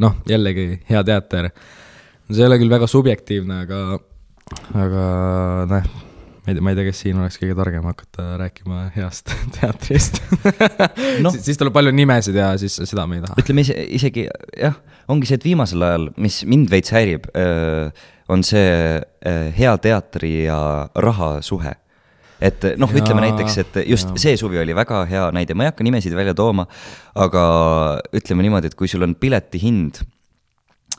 noh, jällegi hea teater. See ei ole küll väga subjektiivne, aga noh, ma ei tea, kes siin oleks kõige targem hakata rääkima heast teatrist. Siis tuleb palju nimesid ja siis seda me ei taha. Ütleme isegi, jah, ongi see, et viimasel ajal, mis mind veits häirib, on see hea teatri ja raha suhe. Et noh, ütleme näiteks, et just see suvi oli väga hea näide. Ma ei hakka nimesid välja tooma, aga ütleme niimoodi, et kui sul on pileti hind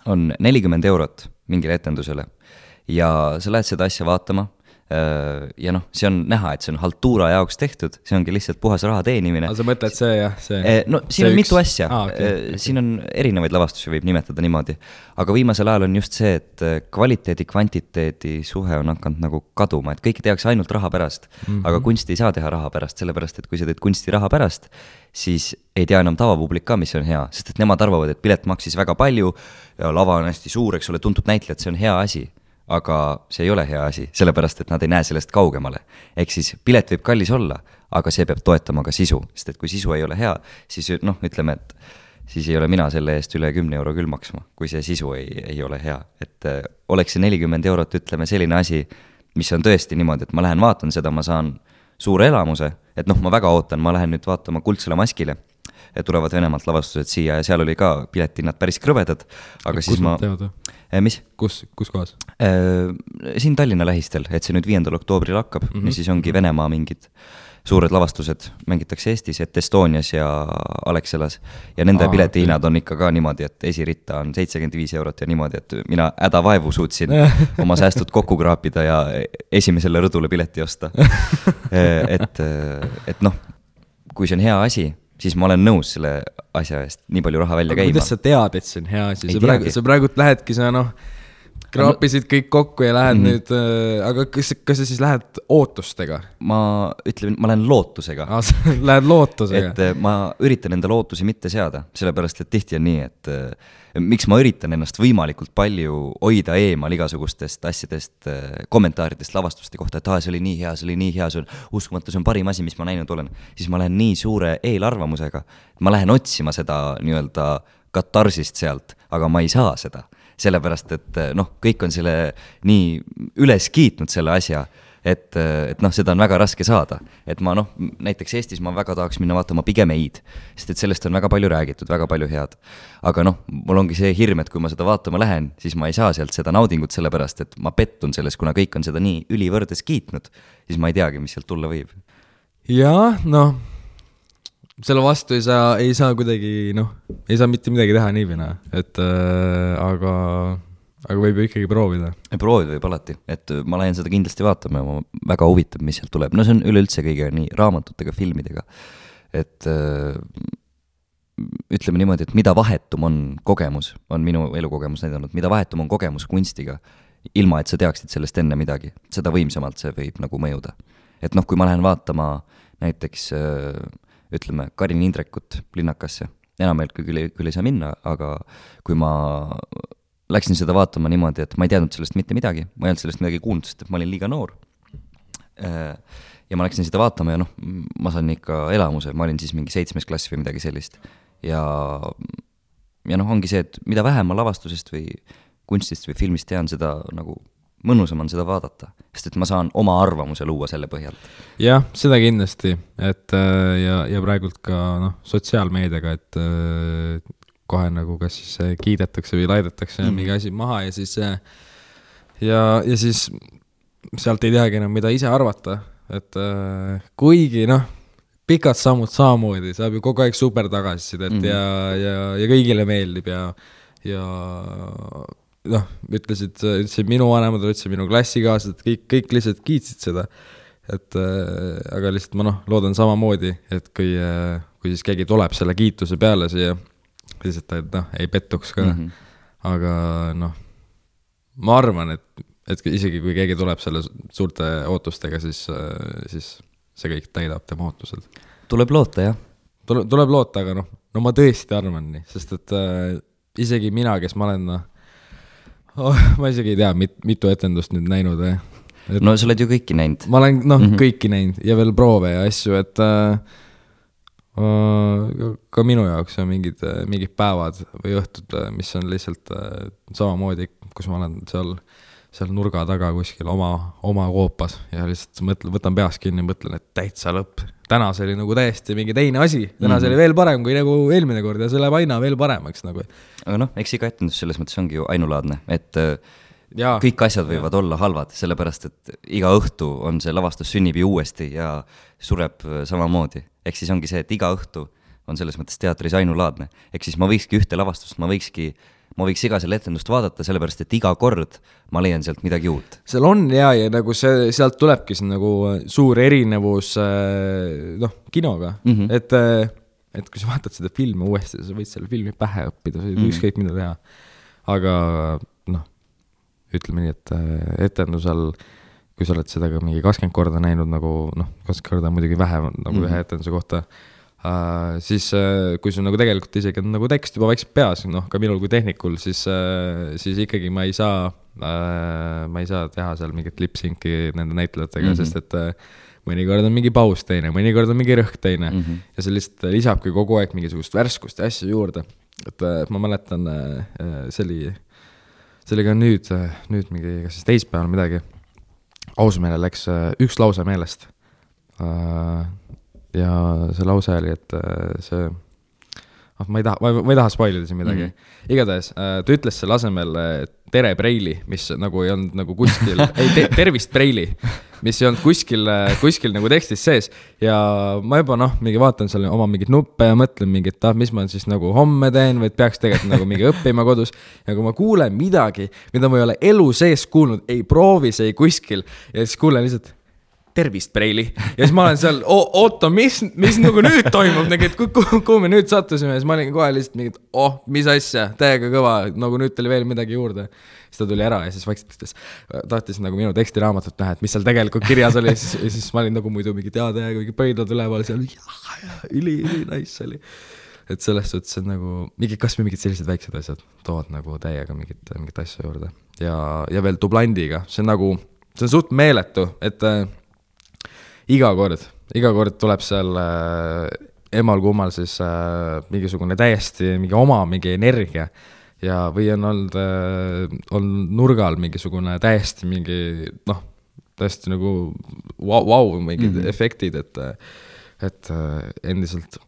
on 40 eurot mingile etendusele ja sa lähed seda asja vaatama ja noh, see on näha, et see on haltuura jaoks tehtud, see ongi lihtsalt puhas raha teenimine. Sa mõtled see, jah? No siin on mitu asja. Siin on erinevaid lavastusi, võib nimetada niimoodi. Aga viimasel ajal on just see, et kvaliteedi, kvantiteedi suhe on hakanud nagu kaduma, et kõike tehakse ainult raha pärast, aga kunsti ei saa teha raha pärast, sellepärast, et kui sa teed kunsti raha pärast, siis ei tea enam tavapublik ka, mis on hea, sest et nemad arvavad, et pilet maksis väga palju ja lava on hästi suur, eks ole, tuntud näitlejad, see on hea asi. Aga see ei ole hea asi, sellepärast, et nad ei näe sellest kaugemale. Ehk siis pilet võib kallis olla, aga see peab toetama ka sisu, sest et kui sisu ei ole hea, siis noh, ütleme, et siis ei ole mina selle eest üle 10 euro küll maksma, kui see sisu ei ole hea. Et oleks see 40 eurot, ütleme, selline asi, mis on tõesti niimoodi, et ma lähen vaatan seda, ma saan suure elamuse, et noh, ma väga ootan, ma lähen nüüd vaatama Kuldsele maskile, tulevad Venemaalt lavastused siia ja seal oli ka piletinnad päris krõvedad, aga kus siis ma... Mis? Kus kohas? Siin Tallinna lähistel, et see nüüd 5. oktoobril hakkab ja siis ongi Venemaa mingid suured lavastused, mängitakse Eestis, et Estonias ja Alexelas ja nende piletihinnad on ikka ka niimoodi, et esiritta on 75 eurot ja niimoodi, et mina hädavaevu suutsin oma säästud kokku kraapida ja esimesele rõdule pileti osta. Et noh, kui see on hea asi, siis ma olen nõus selle asja eest nii palju raha välja käima. Kuidas sa tead, et see on hea asi? Sa praegu lähedki, sa noh, kraapisid kõik kokku ja lähed nüüd, aga kas sa siis lähed ootustega? Ma lähen lootusega. Lähed lootusega? Et ma üritan enda lootusi mitte seada, sellepärast, et tihti on nii, et miks ma üritan ennast võimalikult palju hoida eemal igasugustest asjadest, kommentaaridest, lavastuste kohta, et see oli nii hea, see oli nii hea, see on uskumatu, see on parim asi, mis ma näinud olen. Siis ma lähen nii suure eelarvamusega, ma lähen otsima seda nii-öelda katarsist sealt, aga ma ei saa seda. Sellepärast, et noh, kõik on selle nii üles kiitnud selle asja, et noh, seda on väga raske saada. Et ma noh, näiteks Eestis ma väga tahaks minna vaatama pigem Eid, sest et sellest on väga palju räägitud, väga palju head. Aga noh, mul ongi see hirm, et kui ma seda vaatama lähen, siis ma ei saa sealt seda naudingut sellepärast, et ma pettun selles, kuna kõik on seda nii ülivõrdes kiitnud, siis ma ei teagi, mis sealt tulla võib. Ja, noh, selle vastu ei saa kuidagi, noh, ei saa mitte midagi teha niivina, et aga võib ju ikkagi proovida. Proovida võib alati, et ma lähen seda kindlasti vaatama ja ma väga huvitab, mis sealt tuleb. No see on üleüldse kõige nii raamatutega, filmidega. Et ütleme niimoodi, et mida vahetum on kogemus, on minu elukogemus näidanud, mida vahetum on kogemus kunstiga, ilma et sa teaksid sellest enne midagi, seda võimsamalt see võib nagu mõjuda. Et noh, kui ma lähen vaatama näiteks, ütleme, Karin Indrekut Linnakasse, enam küll ei saa minna, aga kui ma läksin seda vaatama niimoodi, et ma ei teadnud sellest mitte midagi, ma ei olnud sellest midagi kuulnud, sest et ma olin liiga noor. Ja ma läksin seda vaatama ja noh, ma saan ikka elamuse, ma olin siis mingi 7. klass või midagi sellist. Ja noh, ongi see, et mida vähem ma lavastusest või kunstist või filmist tean, seda nagu mõnusam on seda vaadata, sest et ma saan oma arvamuse luua selle põhjalt. Jah, seda kindlasti, et ja praegult ka noh, sotsiaalmeediaga, et kohe nagu kas siis kiidetakse või laidetakse mingi asi maha ja siis sealt ei teagi enam, mida ise arvata, et kuigi noh, pikad sammud samamoodi, saab ju kogu aeg super tagasisidet ja kõigile meeldib ja noh, ütlesid minu vanemad, ütlesid minu klassikaaslased, kõik lihtsalt kiitsid seda, et aga lihtsalt ma noh, loodan samamoodi, et kui siis keegi tuleb selle kiituse peale siia, lihtsalt ta noh, ei pettuks ka, aga noh, ma arvan, et isegi kui keegi tuleb selle suurte ootustega, siis see kõik täidab tema ootused. Tuleb loota, jah? Tuleb loota, aga noh, ma tõesti arvan nii, sest et isegi mina, kes ma olen ma isegi ei tea, mitu etendust nüüd näinud. No sa oled ju kõiki näinud. Ma olen kõiki näinud ja veel proove ja asju, et Ka minu jaoks on mingid päevad või õhtud, mis on lihtsalt samamoodi, kus ma olen seal nurga taga kuskil oma koopas ja lihtsalt võtan peas kinni ja mõtlen, et täitsa lõpp. Täna see oli nagu täiesti mingi teine asi. Täna see oli veel parem kui nagu eelmine kord ja see läheb aina veel paremaks nagu. Aga noh, eks iga etendus selles mõttes ongi ju ainulaadne, et kõik asjad võivad olla halvad, sellepärast et iga õhtu on see lavastus sünnib ju uuesti ja sureb samamoodi. Ehk siis ongi see, et iga õhtu on selles mõttes teatris ainulaadne. Ehk siis ma võikski ühte lavastust, ma võiks iga selle etendust vaadata, sellepärast et iga kord ma leian sealt midagi uut. Seal on ja nagu sealt tulebki see nagu suur erinevus kinoga. Et kui sa vaatad seda filmi uuesti, sa võid selle filmi pähe õppida, sa võid ükskõik mida teha. Aga ütleme nii, et etendusel, kui sa oled seda ka mingi 20 korda näinud, nagu 20 korda muidugi vähem nagu ühe etenduse kohta, siis kui sul nagu tegelikult isegi on nagu tekst juba vaikselt peas, ka minul kui tehnikul, siis ikkagi ma ei saa teha seal mingit lip-synki nende näitlejatega, sest et mõnikord on mingi paus teine, mõnikord on mingi rõhk teine ja see lihtsalt lisabki kogu aeg mingisugust värskust ja asja juurde. Et ma mäletan, see oli ka nüüd mingi, kas siis teispäeval midagi, Ausmeele läks üks lause meelest. Ja see lause oli, et see, ma ei taha spoilida siin midagi. Igatahes, ta ütles selle asemel tere Preili, mis nagu ei olnud nagu kuskil, tervist Preili, mis ei olnud kuskil nagu tekstis sees. Ja ma juba mingi vaatan selle oma mingit nuppe ja mõtlen mingit, mis ma siis nagu homme teen, või peaks tegelikult nagu mingi õppima kodus. Ja kui ma kuulen midagi, mida ma ei ole elu sees kuulnud, ei proovis, ei kuskil, ja siis kuulen lihtsalt tervist Preili. Ja siis ma olen seal, oota, mis nagu nüüd toimub, et kuhu me nüüd sattusime, ja siis ma olin kohe lihtsalt mingid, mis asja, täiega kõva, nagu nüüd tuli veel midagi juurde. Siis ta tuli ära ja siis vaikselt tahtis nagu minu tekstiraamatut näha, et mis seal tegelikult kirjas oli, ja siis ma olin nagu muidu mingi täiega mingi pöidlad üleval seal, üli nice oli. Et selles suhtes on nagu, kas või mingid sellised väiksed asjad toovad nagu täiega mingit asja juurde. Ja veel dublandiga, see on suht meeletu, et iga kord tuleb seal emal kummal siis mingisugune täiesti mingi energia ja või on olnud nurgal mingisugune täiesti täiesti nagu mingid efektid, et endiselt,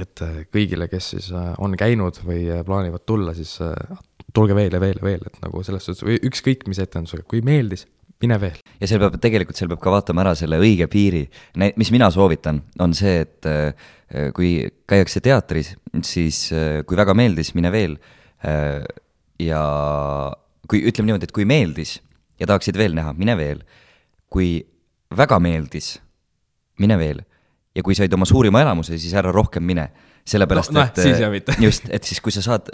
et kõigile, kes siis on käinud või plaanivad tulla, siis tulge veel, et nagu selles suhtes, või ükskõik mis etendusega, kui meeldis, mine veel. Ja seal peab ka vaatama ära selle õige piiri. Mis mina soovitan, on see, et kui käiakse teatris, siis kui väga meeldis, mine veel. Ja kui ütleme niimoodi, et kui meeldis ja tahaksid veel näha, mine veel. Kui väga meeldis, mine veel. Ja kui said oma suurima elamuse, siis ära rohkem mine. Sellepärast, et siis kui sa saad,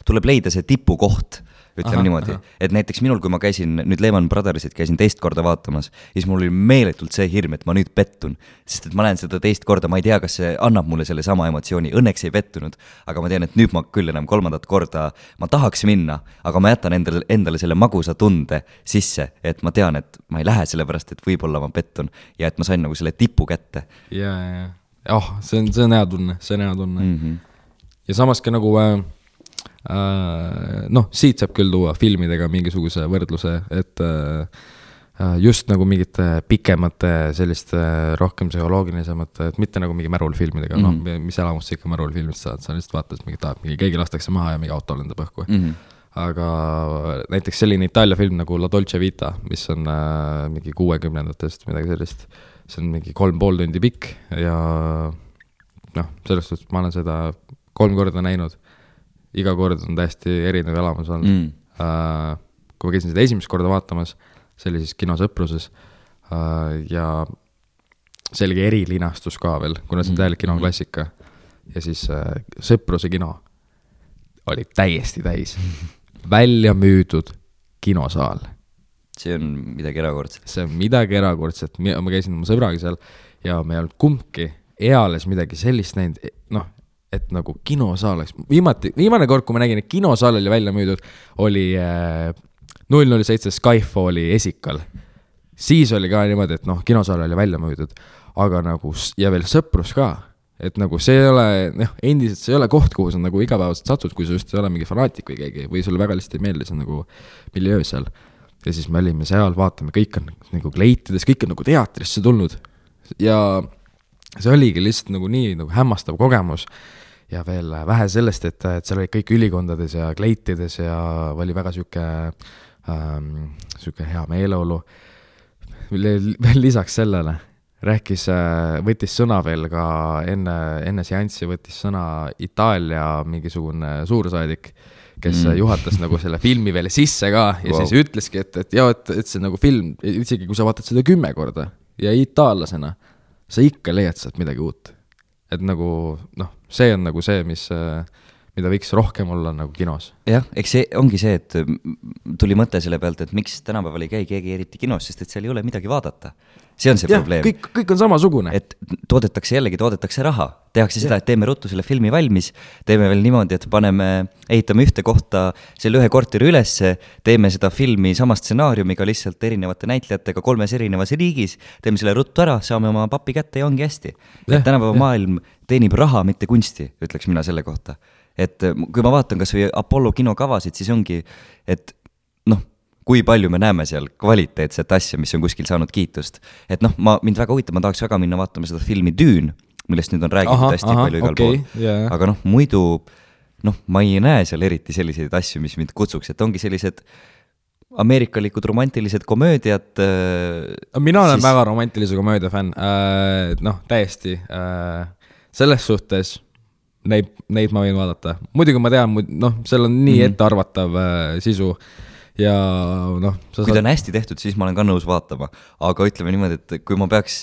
tuleb leida see tipukoht, ütleme niimoodi. Et näiteks minul, kui ma käisin nüüd Lehman Brothersit, käisin teist korda vaatamas, siis mul oli meeletult see hirm, et ma nüüd pettun. Sest et ma näen seda teist korda, ma ei tea, kas see annab mulle selle sama emotsiooni. Õnneks ei pettunud, aga ma tean, et nüüd ma küll enam kolmandat korda, ma tahaks minna, aga ma jätan endale selle magusa tunde sisse, et ma tean, et ma ei lähe sellepärast, et võib-olla ma pettun ja et ma sain nagu selle tipu kätte. Ja. See on hea tunne, Ja samas ka nagu siit saab küll tuua filmidega mingisuguse võrdluse, et just nagu mingite pikemate selliste rohkem psühholoogilisemate, et mitte nagu mingi märulfilmidega, mis elamust sa ikka märulfilmist saad, sa lihtsalt vaatad, mingi keegi lastakse maha ja mingi auto lendab õhku. Aga näiteks selline Itaalia film nagu La Dolce Vita, mis on mingi 60-ndatest midagi sellist, see on mingi 3,5 tundi pikk ja sellest suhtes ma olen seda 3 korda näinud. Iga kord on täiesti erinev elamus olnud. Kui ma käisin seda esimest korda vaatamas, see oli siis kinosõpruses ja see oli erilinastus ka veel, kuna see on täielik kinoklassika ja siis sõpruse kino oli täiesti täis välja müüdud kinosaal. See on midagi erakordset. See on midagi erakordset. Ma käisin oma sõbraga seal ja me ei olnud kumbki eales midagi sellist näinud, et nagu kinosaal oleks. Viimane kord, kui ma nägin, et kinosaal oli välja müüdud, oli 007 Skyfalli esikal. Siis oli ka niimoodi, et kinosaal oli välja müüdud, aga nagu, ja veel sõprus ka. et nagu see ei ole, endiselt see ei ole koht, kuhu sa nagu igapäevaselt satud, kui sa just ei ole mingi fanaatik või keegi, või sulle väga lihtsalt ei meeldi see nagu miljöö seal. Ja siis me olime seal, vaatame, kõik on nagu kleitides, kõik on nagu teatrisse tulnud. Ja see oligi lihtsalt nagu nii nagu hämmastav kogemus. Ja veel vähe sellest, et seal olid kõik ülikondades ja kleitides ja oli väga süke hea meeleolu. Veel lisaks sellele rääkis, võttis sõna veel ka enne seanssi, võttis sõna Itaalia mingisugune suursaadik, kes juhatas nagu selle filmi veel sisse ka ja siis ütleski, et see nagu film, isegi kui sa vaatad seda 10 korda ja itaallasena, sa ikka leiad sealt midagi uut. Et nagu, see on nagu see, mida võiks rohkem olla nagu kinos. Jah, eks see ongi see, et tuli mõte selle pealt, et miks tänapäeval ei käi keegi eriti kinos, sest et seal ei ole midagi vaadata. See on see probleem. Kõik on samasugune. Et toodetakse raha. Tehakse seda, et teeme ruttu selle filmi valmis, teeme veel niimoodi, et ehitame ühte kohta selle ühe korteri ülesse, teeme seda filmi sama stsenaariumiga lihtsalt erinevate näitlejatega 3 erinevas riigis, teeme selle ruttu ära, saame oma papi kätte ja ongi hästi. Et tänapäeva maailm teenib raha, mitte kunsti, ütleks mina selle kohta. Et kui ma vaatan kas või Apollo kinokavasid, siis ongi, et kui palju me näeme seal kvaliteetset asja, mis on kuskil saanud kiitust. Et mind väga huvitab, ma tahaks väga minna vaatama seda filmi Düün, millest nüüd on räägitud hästi palju igal pool. Yeah. Aga muidu, ma ei näe seal eriti selliseid asju, mis mind kutsuks, et ongi sellised ameerikalikud romantilised komöödiad. Mina olen väga romantilise komöödia fänn, täiesti. Selles suhtes neid ma võin vaadata. Muidugi ma tean, seal on nii ettearvatav sisu. Ja kui ta on hästi tehtud, siis ma olen ka nõus vaatama, aga ütleme niimoodi, et kui ma peaks,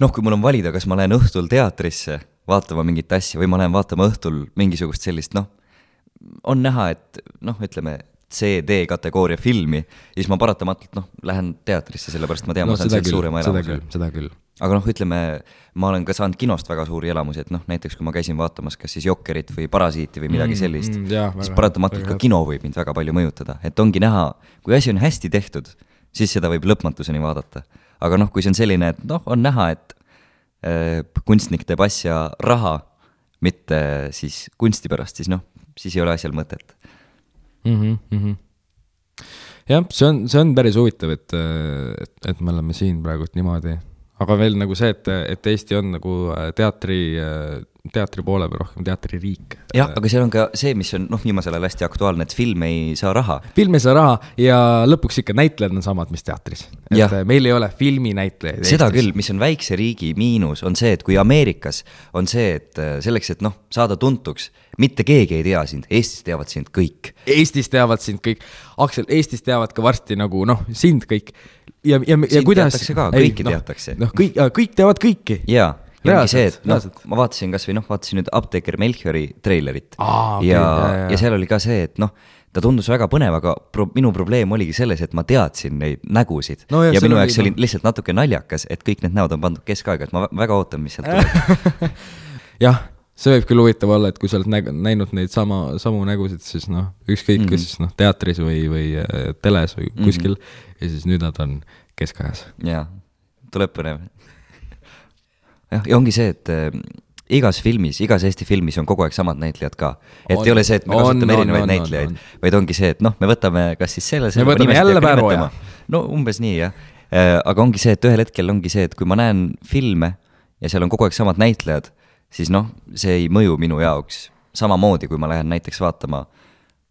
kui mul on valida, kas ma lähen õhtul teatrisse vaatama mingit asja või ma lähen vaatama õhtul mingisugust sellist, on näha, et ütleme CD kategooria filmi, siis ma paratamatult lähen teatrisse, sellepärast ma tean, ma saan sealt suurema elamuse. Seda küll. Aga ütleme, ma olen ka saanud kinost väga suuri elamusi, et näiteks kui ma käisin vaatamas kas siis Jokkerit või Parasiiti või midagi sellist, siis paratamatult ka kino võib mind väga palju mõjutada, et ongi näha, kui asi on hästi tehtud, siis seda võib lõpmatuseni vaadata. Aga kui see on selline, et on näha, et kunstnik teeb asja raha, mitte siis kunsti pärast, siis ei ole asjal mõtet. Jah, see on päris huvitav, et me oleme siin praegu niimoodi. Aga veel nagu see, et Eesti on nagu teatri poole või rohkem teatririik. Jah, aga seal on ka see, mis on viimasel ajal hästi aktuaalne, et film ei saa raha. Film ei saa raha ja lõpuks ikka näitlejad on samad, mis teatris. Et meil ei ole filminäitlejaid. Seda küll, mis on väikse riigi miinus, on see, et kui Ameerikas on see, et selleks, et saada tuntuks, mitte keegi ei tea sind, Eestis teavad sind kõik. Aksel, Eestis teavad ka varsti nagu sind kõik. Ja sind kuidas teatakse ka, kõiki teatakse. Kõik teavad kõiki. Jaa, ja ongi see, et ma vaatasin kas või vaatasin nüüd Apteeker Melchiori treilerit ja seal oli ka see, et ta tundus väga põnev, aga minu probleem oligi selles, et ma teadsin neid nägusid ja minu jaoks oli lihtsalt natuke naljakas, et kõik need näod on pandud keskaega, et ma väga ootan, mis sealt tuleb. Jah, see võib küll huvitav olla, et kui sa oled näinud neid samu nägusid, siis ükskõik siis teatris või teles või kuskil ja siis nüüd nad on keskajas. Jaa, tuleb põnev. Ja ongi see, et igas Eesti filmis on kogu aeg samad näitlejad ka. Et ei ole see, et me kasutame erinevaid näitlejaid, vaid ongi see, et me võtame kas siis selle me võtame jälle Päroja. Umbes nii, jah. Aga ongi see, et ühel hetkel ongi see, et kui ma näen filme ja seal on kogu aeg samad näitlejad, siis see ei mõju minu jaoks samamoodi, kui ma lähen näiteks vaatama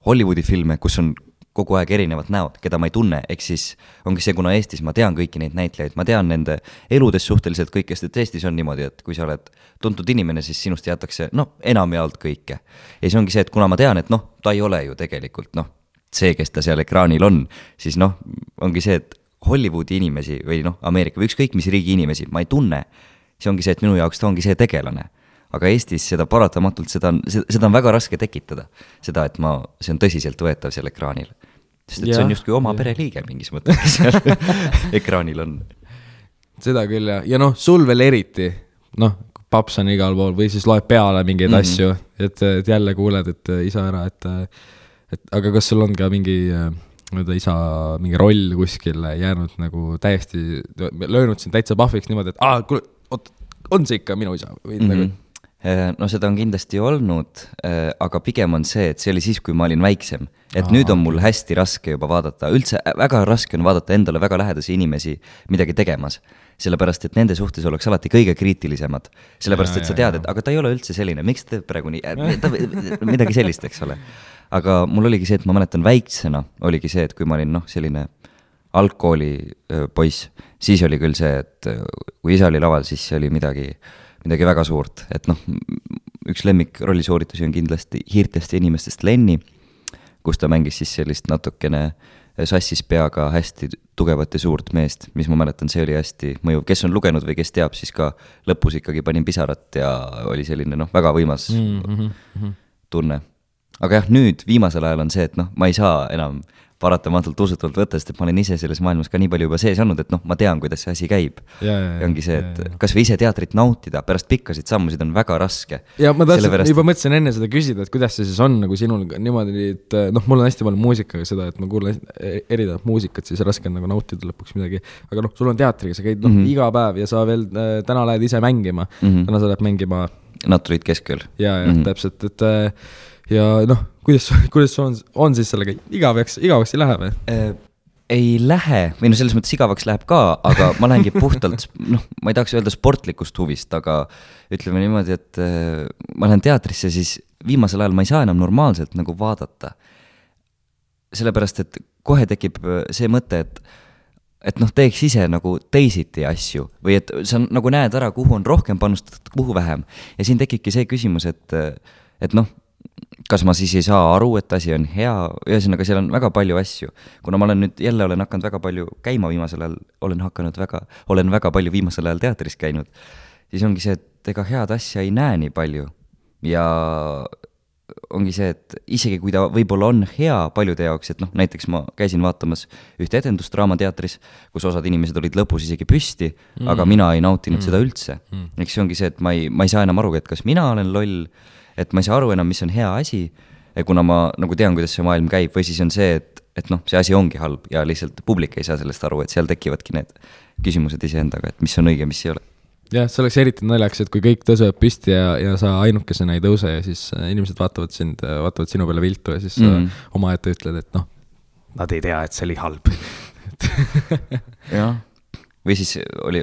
Hollywoodi filme, kus on kogu aeg erinevad näod, keda ma ei tunne, ehk siis ongi see, kuna Eestis ma tean kõiki neid näitlejaid, ma tean nende eludes suhteliselt kõikest, et Eestis on niimoodi, et kui sa oled tuntud inimene, siis sinust jätakse enamjaolt kõike. Ja siis ongi see, et kuna ma tean, et ta ei ole ju tegelikult see, kes ta seal ekraanil on, siis ongi see, et Hollywoodi inimesi või Ameerika või ükskõik mis riigi inimesi ma ei tunne, siis ongi see, et minu jaoks ta ongi see tegelane. Aga Eestis seda paratamatult, seda on väga raske tekitada, seda, et see on tõsiselt võetav seal ekraanil. Sest et see on justkui oma pereliige mingis mõttes seal ekraanil on. Seda küll, ja sul veel eriti, paps on igal pool või siis loeb peale mingeid asju, et jälle kuuled, et isa ära, aga kas sul on ka mingi isa mingi roll kuskil jäänud nagu täiesti löönud siin täitsa pahviks niimoodi, et kuule, on see ikka minu isa või nagu No seda on kindlasti olnud, aga pigem on see, et see oli siis, kui ma olin väiksem. Et nüüd on mul hästi raske juba vaadata, üldse väga raske on vaadata endale väga lähedasi inimesi midagi tegemas. Sellepärast, et nende suhtes oleks alati kõige kriitilisemad. Sellepärast, et sa tead, et aga ta ei ole üldse selline, miks ta teeb praegu nii, midagi sellist, eks ole. Aga mul oligi see, et ma mäletan väiksena, oligi see, et kui ma olin selline algkooli poiss, siis oli küll see, et kui isa oli laval, siis see oli midagi väga suurt, et üks lemmik rollisuuritusi on kindlasti Hiirtest ja inimestest Lenni, kus ta mängis siis sellist natukene sassis peaga hästi tugevat ja suurt meest, mis ma mäletan, see oli hästi mõjuv, kes on lugenud või kes teab, siis ka lõpus ikkagi panin pisarat ja oli selline väga võimas tunne. Aga jah, nüüd viimasel ajal on see, et ma ei saa enam paratamatult usutavalt võtta, sest et ma olen ise selles maailmas ka nii palju juba sees olnud, et ma tean, kuidas see asi käib. Ja ongi see, et kas või ise teatrit nautida, pärast pikkasid sammusid on väga raske. Ja ma juba mõtlesin enne seda küsida, et kuidas see siis on nagu sinul niimoodi, et mul on hästi palju muusikaga seda, et ma kuulen erinevat muusikat, siis raske on nagu nautida lõpuks midagi. Aga sul on teatriga, sa käid iga päev ja sa veel täna lähed ise mängima. Täna sa lähed mängima Naturid keskel. Ja täpselt, et ja kuidas on siis sellega igavaks ei lähe või? Ei lähe, või selles mõttes igavaks läheb ka, aga ma lähengi puhtalt, ma ei tahaks öelda sportlikust huvist, aga ütleme niimoodi, et ma lähen teatrisse, siis viimasel ajal ma ei saa enam normaalselt nagu vaadata. Sellepärast, et kohe tekib see mõte, et teeks ise nagu teisiti asju või et sa nagu näed ära, kuhu on rohkem panustatud, kuhu vähem. Ja siin tekibki see küsimus, et kas ma siis ei saa aru, et asi on hea, ühesõnaga seal on väga palju asju. Kuna ma olen nüüd jälle hakanud väga palju käima viimasel ajal, olen väga palju viimasel ajal teatris käinud, siis ongi see, et ega head asja ei näe nii palju. Ja ongi see, et isegi kui ta võib-olla on hea paljude jaoks, et näiteks ma käisin vaatamas ühte etendust Draamateatris, kus osad inimesed olid lõpus isegi püsti, aga mina ei nautinud seda üldse. Eks see ongi see, et ma ei saa enam aru, et kas mina olen loll, et ma ei saa aru enam, mis on hea asi, kuna ma nagu tean, kuidas see maailm käib, või siis on see, et see asi ongi halb ja lihtsalt publik ei saa sellest aru, et seal tekivadki need küsimused iseendaga, et mis on õige, mis ei ole. Jah, see oleks eriti naljaks, et kui kõik tõusevad püsti ja sa ainukesena ei tõuse ja siis inimesed vaatavad sinu peale viltu ja siis oma ette ütled, et nad ei tea, et see oli halb. Jah, või siis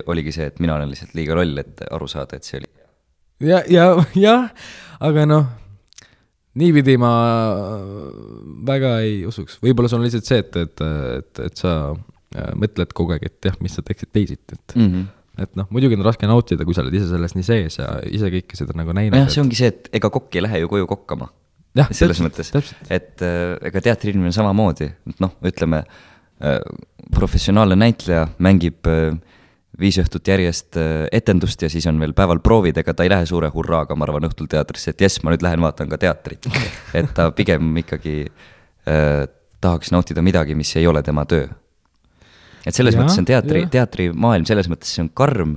oligi see, et mina olen lihtsalt liiga loll, et aru saada, et see oli Ja, aga niipidi ma väga ei usuks. Võib-olla see on lihtsalt see, et sa mõtled kogu aeg, et jah, mis sa teeksid teisiti. Et muidugi on raske nautida, kui sa oled ise selles nii sees ja ise kõike seda nagu näinud. Jah, see ongi see, et ega kokk ei lähe ju koju kokkama. Ja, selles mõttes, et ega teatriinimene samamoodi, ütleme, professionaalne näitleja mängib 5 õhtut järjest etendust ja siis on veel päeval proovid, ega ta ei lähe suure hurraaga, ma arvan, õhtul teatrisse, et jess, ma nüüd lähen vaatan ka teatrit. Et ta pigem ikkagi tahaks nautida midagi, mis ei ole tema töö. Et selles mõttes on teatrimaailm, selles mõttes see on karm,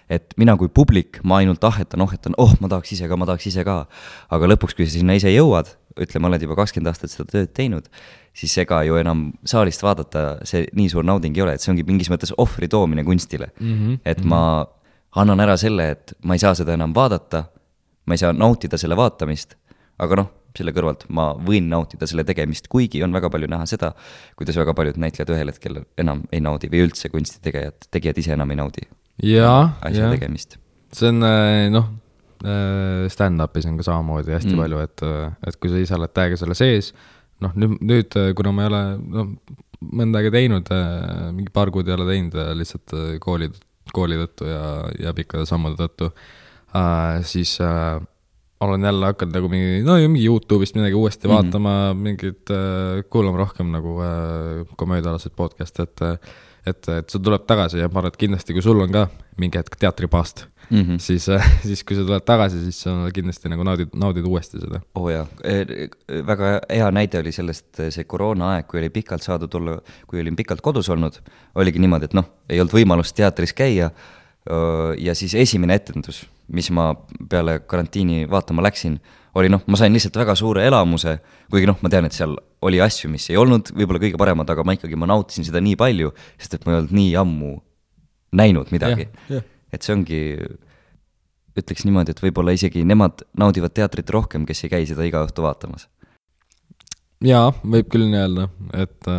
et mina kui publik, ma ainult ahetan, ma tahaks ise ka. Aga lõpuks, kui sa sinna ise jõuad, ütleme, oled juba 20 aastat seda tööd teinud, siis ega ju enam saalist vaadata see nii suur nauding ei ole, et see ongi mingis mõttes ohvri toomine kunstile. Et ma annan ära selle, et ma ei saa seda enam vaadata, ma ei saa nautida selle vaatamist, aga selle kõrvalt ma võin nautida selle tegemist, kuigi on väga palju näha seda, kuidas väga paljud näitlejad ühel hetkel enam ei naudi või üldse kunstitegijad ise enam ei naudi asja tegemist. See on, stand-upis on ka samamoodi hästi palju, et kui sa ise oled täiega selle sees, nüüd, kuna ma ei ole mõnda aega teinud, mingi paar kuud ei ole teinud lihtsalt kooli tõttu ja pikkade sammude tõttu, siis olen jälle hakanud nagu mingi YouTube'ist midagi uuesti vaatama, mingid kuulama rohkem nagu komöödialased podcast, et see tuleb tagasi ja ma arvan, et kindlasti, kui sul on ka mingi hetk teatripaast, siis kui sa tuled tagasi, siis sa kindlasti nagu naudid uuesti seda. Jaa, väga hea näide oli sellest see koroona aeg, kui olin pikalt kodus olnud, oligi niimoodi, et ei olnud võimalust teatris käia ja siis esimene etendus, mis ma peale karantiini vaatama läksin, oli ma sain lihtsalt väga suure elamuse, kuigi ma tean, et seal oli asju, mis ei olnud võib-olla kõige paremad, aga ma nautisin seda nii palju, sest et ma ei olnud nii ammu näinud midagi. Et see ongi ütleks niimoodi, et võib-olla isegi nemad naudivad teatrit rohkem, kes ei käi seda iga õhtu vaatamas. Jaa, võib küll nii öelda, et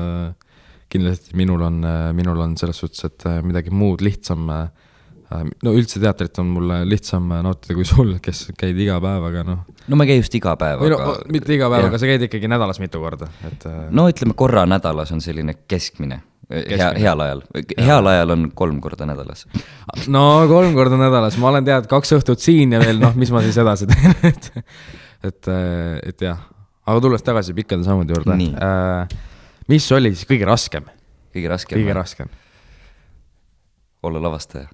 kindlasti minul on selles suhtes, et midagi muud lihtsam, no üldse teatrit on mulle lihtsam nautida kui sul, kes käid iga päev, aga noh. No ma ei käi just iga päev, aga... mitte iga päev, aga sa käid ikkagi nädalas mitu korda. Et... No ütleme, korra nädalas on selline keskmine. Heal ajal. Heal ajal on 3 korda nädalas. No 3 korda nädalas. Ma olen tead 2 õhtut siin ja veel, noh, mis ma siis edasi teen. et jah. Aga tulles tagasi pikkade sammude juurde. Mis oli siis kõige raskem? Kõige raskem. Olla lavastaja.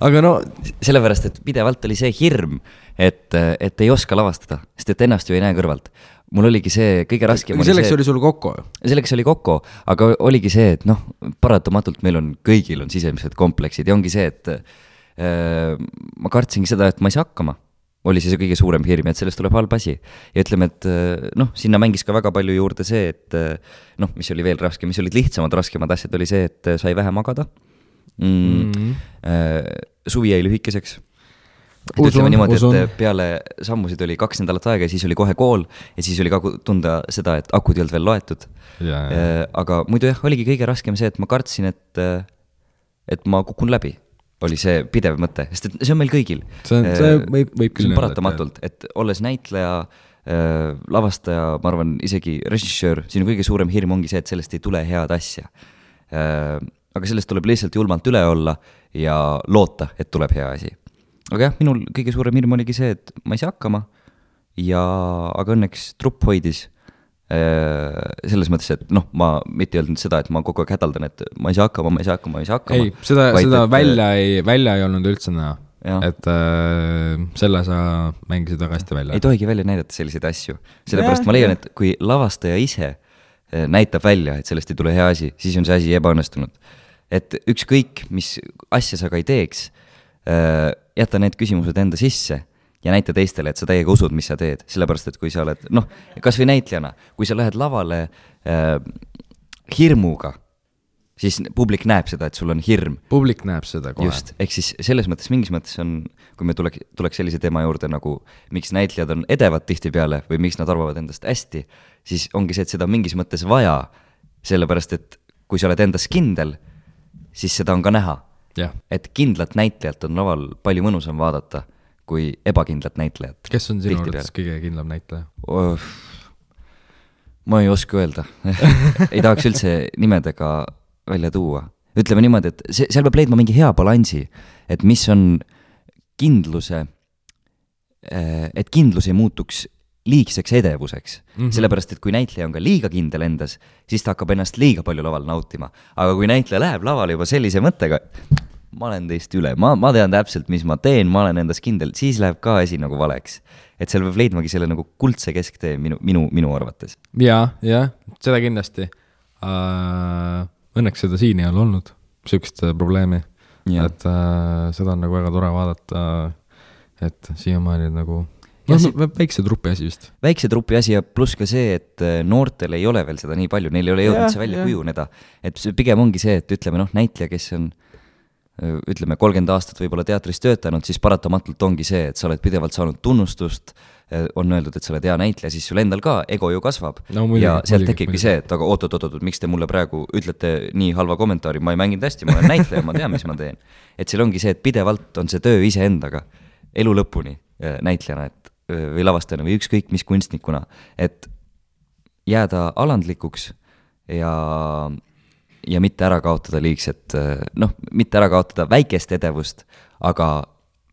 Aga no... Sellepärast, et pidevalt oli see hirm, et ei oska lavastada, sest et ennast ju ei näe kõrvalt. Mul oligi see kõige raskem. Selleks oli sul Kokko? Selleks oli Kokko, aga oligi see, et noh, paratamatult meil on, kõigil on sisemised kompleksid ja ongi see, et ma kartsingi seda, et ma ei saa hakkama. Oli see kõige suurem hirm, et sellest tuleb halb asi. Ja ütleme, et noh, sinna mängis ka väga palju juurde see, et noh, mis oli veel raske, mis olid lihtsamad, raskemad asjad, oli see, et sai vähe magada. Suvi jäi lühikeseks. Ütleme niimoodi, et peale sammusid oli 2 nädalat aega ja siis oli kohe kool ja siis oli ka tunda seda, et akud ei olnud veel loetud. Aga muidu jah, oligi kõige raskem see, et ma kartsin, et ma kukun läbi. Oli see pidev mõte, sest see on meil kõigil. See võib küll paratamatult, et olles näitleja, lavastaja, ma arvan, isegi režissöör, sinu kõige suurem hirm ongi see, et sellest ei tule head asja. Aga sellest tuleb lihtsalt julmalt üle olla ja loota, et tuleb hea asi. Aga jah, minul kõige suurem hirm oligi see, et ma ei saa hakkama aga õnneks trupp hoidis selles mõttes, et noh, ma mitte öelnud seda, et ma kogu aeg hädaldan, et ma ei saa hakkama. Ei, seda välja ei olnud üldse näha, et selle sa mängisid väga hästi välja. Ei tohigi välja näidata selliseid asju, sellepärast ma leian, et kui lavastaja ise näitab välja, et sellest ei tule hea asi, siis on see asi ebaõnnestunud. Et ükskõik, mis asja sa ka ei teeks, jäta need küsimused enda sisse ja näita teistele, et sa täiega usud, mis sa teed. Sellepärast, et kui sa oled, noh, kas või näitlejana, kui sa lähed lavale hirmuga, siis publik näeb seda, et sul on hirm. Publik näeb seda kohe. Just, ehk siis selles mõttes, mingis mõttes on, kui me tuleks sellise teema juurde nagu, miks näitlejad on edevad tihti peale või miks nad arvavad endast hästi, siis ongi see, et seda mingis mõttes vaja, sellepärast, et kui sa oled endas kindel, siis seda on ka näha. Ja. Et kindlat näitlejat on laval palju mõnusam vaadata kui ebakindlat näitlejat. Kes on sinu arvates kõige kindlam näitleja? Ma ei oska öelda. Ei tahaks üldse nimedega välja tuua. Ütleme niimoodi, et seal peab leidma mingi hea balansi, et mis on kindluse, et kindlus ei muutuks liigseks edevuseks. Sellepärast, et kui näitleja on ka liiga kindel endas, siis ta hakkab ennast liiga palju laval nautima. Aga kui näitleja läheb lavale juba sellise mõttega, ma olen teist üle, ma tean täpselt, mis ma teen, ma olen endas kindel, siis läheb ka asi nagu valeks. Et seal peab leidmagi selle nagu kuldse kesktee minu arvates. Ja, seda kindlasti. Õnneks seda siin ei ole olnud, sükest probleemi. Ja. Et seda on nagu väga tore vaadata, et siiamaani nagu väikse trupi asi vist. Väikse trupi asi ja pluss ka see, et noortel ei ole veel seda nii palju, neil ei ole jõudnud see välja kujuneda. Et pigem ongi see, et ütleme näitleja, kes on ütleme 30 aastat võib-olla teatris töötanud, siis paratamatult ongi see, et sa oled pidevalt saanud tunnustust, on öeldud, et sa oled hea näitleja, siis sul endal ka ego ju kasvab. No, muidugi, ja sealt tekibki see, et aga oot, miks te mulle praegu ütlete nii halva kommentaari, ma ei mänginud hästi, ma olen näitleja, ma tean, mis ma teen. Et seal ongi see, et pidevalt on see töö ise endaga, elu lõpuni näitlejana või lavastajana või ükskõik mis kunstnikuna, et jääda alandlikuks ja mitte ära kaotada liigset, mitte ära kaotada väikest edevust, aga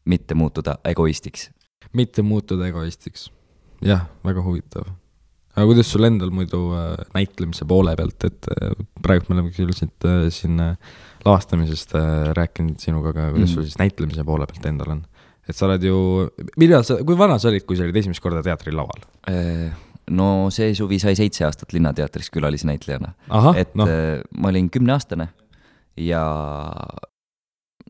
mitte muutuda egoistiks. Mitte muutuda egoistiks. Jah, väga huvitav. Aga kuidas sul endal muidu näitlemise poole pealt, et praegu me oleme küll siin lavastamisest rääkinud sinuga, aga kuidas sul siis näitlemise poole pealt endal on? Et sa oled ju, kui vana sa olid, kui sa olid esimest korda teatri laval? No see suvi sai 7 aastat Linnateatris külalisnäitlejana. Ma olin 10-aastane ja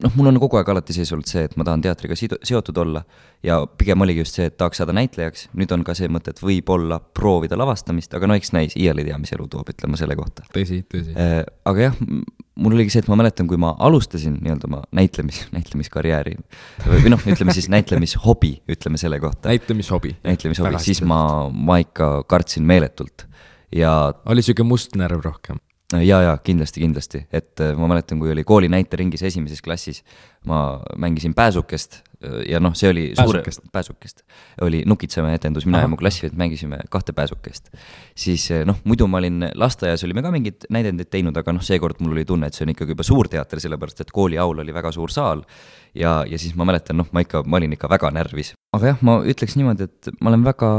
noh, mul on kogu aeg alati sees olnud see, et ma tahan teatriga seotud olla ja pigem oligi just see, et tahaks saada näitlejaks, nüüd on ka see mõte, et võib-olla proovida lavastamist, aga no eks näis, iial ei tea, mis elu toob, ütleme selle kohta. Tõsi. Aga jah, mul oligi see, et ma mäletan, kui ma alustasin nii-öelda oma näitlemiskarjääri või noh, ütleme siis näitlemishobi, ütleme selle kohta. Näitlemishobi, siis ma ikka kartsin meeletult ja oli siuke must närv rohkem. Ja kindlasti, et ma mäletan, kui oli kooli näiteringis esimeses klassis, ma mängisin pääsukest ja noh, see oli pääsukest, oli Nukitsemäe etendus, mina ja mu klassivend mängisime 2 pääsukest. Siis noh, muidu ma olin lasteaias, olime ka mingid näidendid teinud, aga noh, seekord mul oli tunne, et see on ikkagi juba suur teater, sellepärast et kooli aul oli väga suur saal ja siis ma mäletan, noh, ma olin ikka väga närvis. Aga jah, ma ütleks niimoodi, et ma olen väga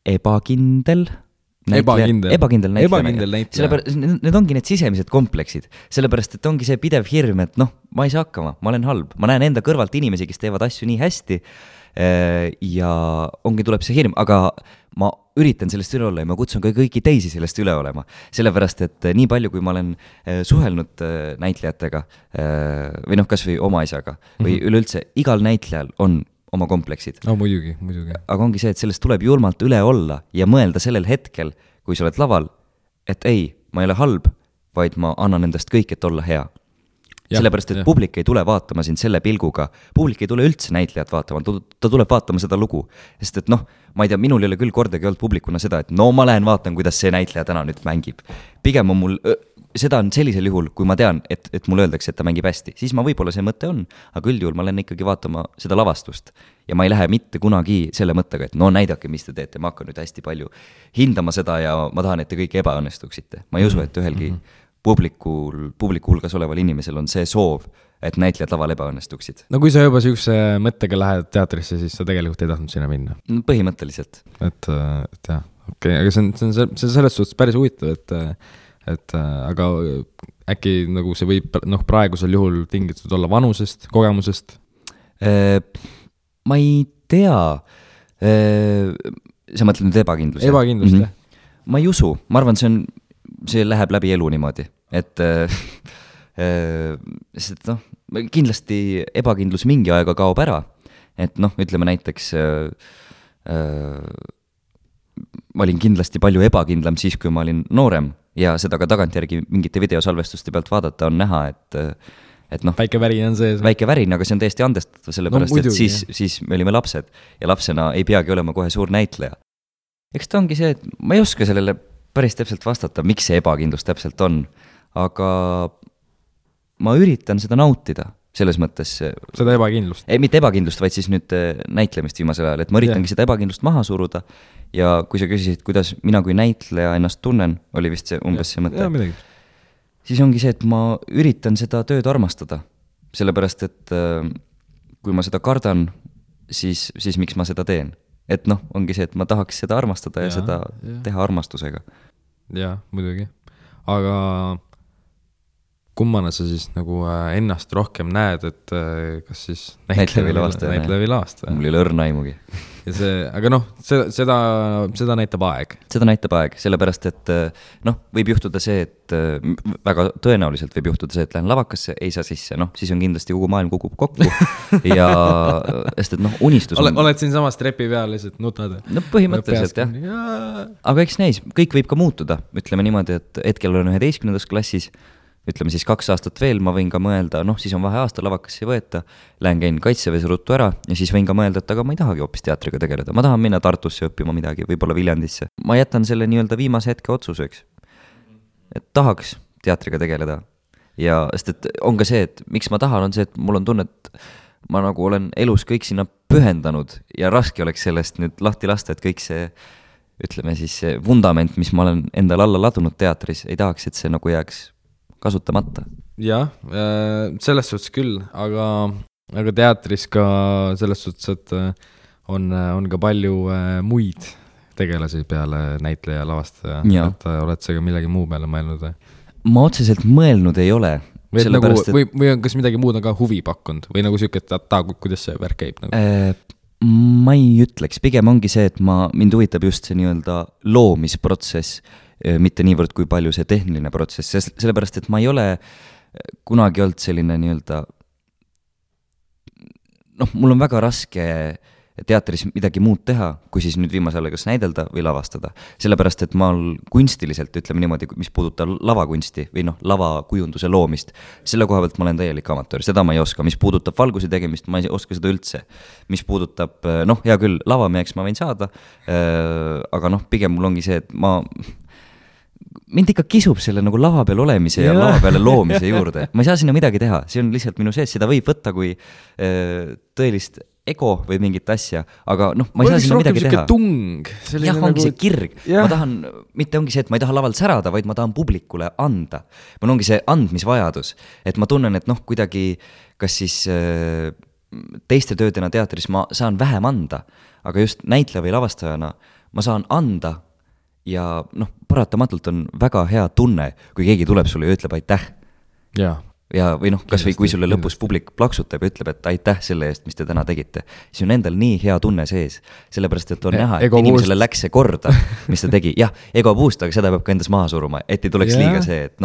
ebakindel näitleja. Sellepärast, need ongi need sisemised kompleksid, sellepärast, et ongi see pidev hirm, et noh, ma ei saa hakkama, ma olen halb, ma näen enda kõrvalt inimesi, kes teevad asju nii hästi ja tuleb see hirm, aga ma üritan sellest üle olla ja ma kutsun ka kõiki teisi sellest üle olema, sellepärast, et nii palju, kui ma olen suhelnud näitlejatega või noh, kas või oma isaga või üleüldse, igal näitlejal on oma kompleksid. No muidugi. Aga ongi see, et sellest tuleb julmalt üle olla ja mõelda sellel hetkel, kui sa oled laval, et ei, ma ei ole halb, vaid ma annan endast kõik, et olla hea. Sellepärast, et publik ei tule vaatama sind selle pilguga, publik ei tule üldse näitlejat vaatama, ta tuleb vaatama seda lugu. Sest et noh, ma ei tea, minul ei ole küll kordagi olnud publikuna seda, et no ma lähen vaatan, kuidas see näitleja täna nüüd mängib. Pigem on mul seda on sellisel juhul, kui ma tean, et mulle öeldakse, et ta mängib hästi, siis ma võib-olla see mõte on, aga üldjuhul ma lähen ikkagi vaatama seda lavastust ja ma ei lähe mitte kunagi selle mõttega, et no näidake, mis te teete, ma hakkan nüüd hästi palju hindama seda ja ma tahan, et te kõik ebaõnnestuksite. Ma ei usu, et ühelgi publiku hulgas oleval inimesel on see soov, et näitlejad laval ebaõnnestuksid. No kui sa juba sihukese mõttega lähed teatrisse, siis sa tegelikult ei tahtnud sinna minna? Põhimõtteliselt. Et jah, okei, aga see on selles suhtes päris huvitav, et aga äkki nagu see võib praegusel juhul tingitud olla vanusest, kogemusest? Ma ei tea. Sa mõtled nüüd ebakindlust? Ebakindlust, jah. Ma ei usu, ma arvan, see läheb läbi elu niimoodi, et sest noh, kindlasti ebakindlus mingi aega kaob ära, et noh, ütleme näiteks ma olin kindlasti palju ebakindlam siis, kui ma olin noorem ja seda ka tagantjärgi mingite videosalvestuste pealt vaadata on näha, et noh, väike värin on sees. Väike värin, aga see on täiesti andestatav, sellepärast et siis me olime lapsed ja lapsena ei peagi olema kohe suur näitleja. Eks ta ongi see, et ma ei oska sellele päris täpselt vastata, miks see ebakindlus täpselt on, aga ma üritan seda nautida selles mõttes. Seda ebakindlust? Ei, mitte ebakindlust, vaid siis nüüd näitlemist viimasel ajal, et ma üritangi seda ebakindlust maha suruda ja kui sa küsisid, kuidas mina kui näitleja ennast tunnen, oli vist see umbes see mõte. Siis ongi see, et ma üritan seda tööd armastada, sellepärast et kui ma seda kardan, siis miks ma seda teen. Et noh, ongi see, et ma tahaks seda armastada ja seda teha armastusega. Jaa, muidugi. Aga kummana sa siis nagu ennast rohkem näed, et kas siis näitleja või lavastaja? Mul ei ole õrna aimugi. Ja see, aga noh, seda näitab aeg. Seda näitab aeg, sellepärast, et noh, võib juhtuda see, et väga tõenäoliselt võib juhtuda see, et lähen lavakasse, ei saa sisse, noh, siis on kindlasti kogu maailm kukub kokku ja sest, et noh, unistus on... Oled siin samas trepi peal lihtsalt nutad? No põhimõtteliselt, jah. Aga eks näis, kõik võib ka muutuda, ütleme niimoodi, et hetkel olen 11. klassis, ütleme siis 2 aastat veel, ma võin ka mõelda, noh, siis on vaheaasta, lavakasse ei võeta, lähen käin Kaitseväes ruttu ära ja siis võin ka mõelda, et aga ma ei tahagi hoopis teatriga tegeleda, ma tahan minna Tartusse õppima midagi, võib-olla Viljandisse. Ma jätan selle nii-öelda viimase hetke otsuseks, et tahaks teatriga tegeleda ja sest, et on ka see, et miks ma tahan, on see, et mul on tunne, et ma nagu olen elus kõik sinna pühendanud ja raske oleks sellest nüüd lahti lasta, et kõik see, ütleme siis see vundament, mis ma olen endale alla ladunud teatris, ei tahaks, et see nagu jääks kasutamata. Jah, selles suhtes küll, aga teatris ka selles suhtes, et on ka palju muid tegelasi peale näitleja lavastaja, et oled sa ka millegi muu peale mõelnud? Ma otseselt mõelnud ei ole. Nagu, või on kas midagi muud on ka huvi pakkunud või nagu siuke, et kuidas see värk käib? Nagu? Ma ei ütleks, pigem ongi see, et mind huvitab just see nii-öelda loomisprotsess, mitte niivõrd kui palju see tehniline protsess, sellepärast, et ma ei ole kunagi olnud selline nii-öelda mul on väga raske teatris midagi muud teha, kui siis nüüd viimasel ajal kas näidelda või lavastada. Sellepärast, et ma kunstiliselt, ütleme niimoodi, mis puudutab lavakunsti või lavakujunduse loomist, selle koha pealt ma olen täielik amatöör, seda ma ei oska. Mis puudutab valguse tegemist, ma ei oska seda üldse. Mis puudutab, hea küll, lavameheks ma võin saada, aga pigem mul ongi see, et mind ikka kisub selle nagu lava peal olemise ja lava peale loomise juurde. Ma ei saa sinna midagi teha, see on lihtsalt minu sees, seda võib võtta kui tõelist ego või mingit asja, aga ma ei saa sinna midagi teha. Tung, jah, ongi see kirg. Ma tahan, mitte ongi see, et ma ei taha lavalt särada, vaid ma tahan publikule anda. Mul ongi see andmisvajadus, et ma tunnen, et kuidagi, kas siis teiste töödena teatris ma saan vähem anda, aga just näitleja või lavastajana ma saan anda ja paratamatult on väga hea tunne, kui keegi tuleb sulle ja ütleb aitäh. Ja või kas või kui sulle lõpus publik plaksutab ja ütleb, et aitäh selle eest, mis te täna tegite, siis on endal nii hea tunne sees, sellepärast, et on näha, et inimesele läks see korda, mis ta tegi. Jah, ego puust, aga seda peab ka endas maha suruma, et ei tuleks liiga see, et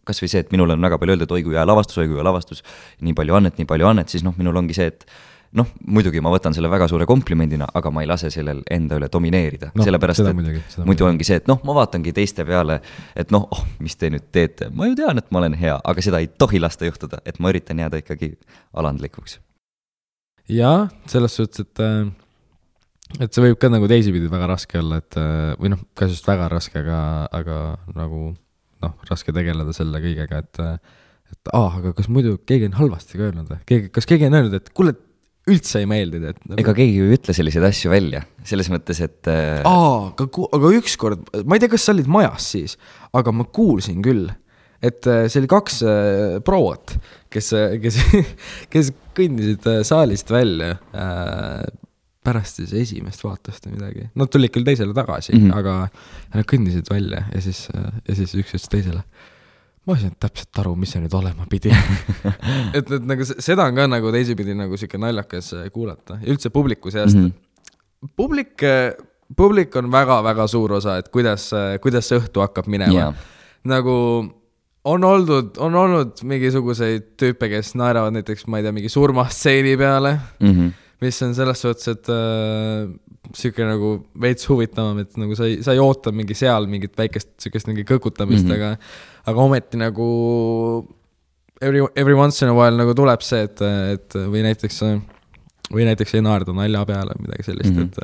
kas või see, et minul on väga palju öeldud, oi kui hea lavastus, nii palju annet, siis minul ongi see, et muidugi ma võtan selle väga suure komplimendina, aga ma ei lase sellel enda üle domineerida, sellepärast, et muidu ongi see, et ma vaatangi teiste peale, et mis te nüüd teete, ma ju tean, et ma olen hea, aga seda ei tohi lasta juhtuda, et ma üritan jääda ikkagi alandlikuks. Jaa, selles suhtes, et see võib ka nagu teisipidi väga raske olla, et või ka just väga raske, aga nagu raske tegeleda selle kõigega, et aga kas muidu keegi on halvasti ka öelnud või? Kas keegi on öelnud, et kuule, üldse ei meeldida, et ega keegi ju ütle selliseid asju välja, selles mõttes, et aga ükskord, ma ei tea, kas sa olid majas siis, aga ma kuulsin küll, et see oli 2 proot, kes kõndisid saalist välja pärast siis esimest vaatust või midagi. Nad tulid küll teisele tagasi, aga nad kõndisid välja ja siis üks ütles teisele. Ma ei saanud täpselt aru, mis see nüüd olema pidi. et nagu seda on ka nagu teisipidi nagu siuke naljakas kuulata. Ja üldse publiku seast. Publik on väga-väga suur osa, et kuidas see õhtu hakkab minema. Nagu on olnud mingisuguseid tüüpe, kes naeravad näiteks, ma ei tea, mingi surmastseeni peale, mis on selles suhtes, et siuke nagu veits huvitavam, et nagu sa ei oota mingi seal mingit väikest siukest mingi kõkutamist, aga ometi nagu every once in a while nagu tuleb see, et või näiteks ei naerda nalja peale midagi sellist, et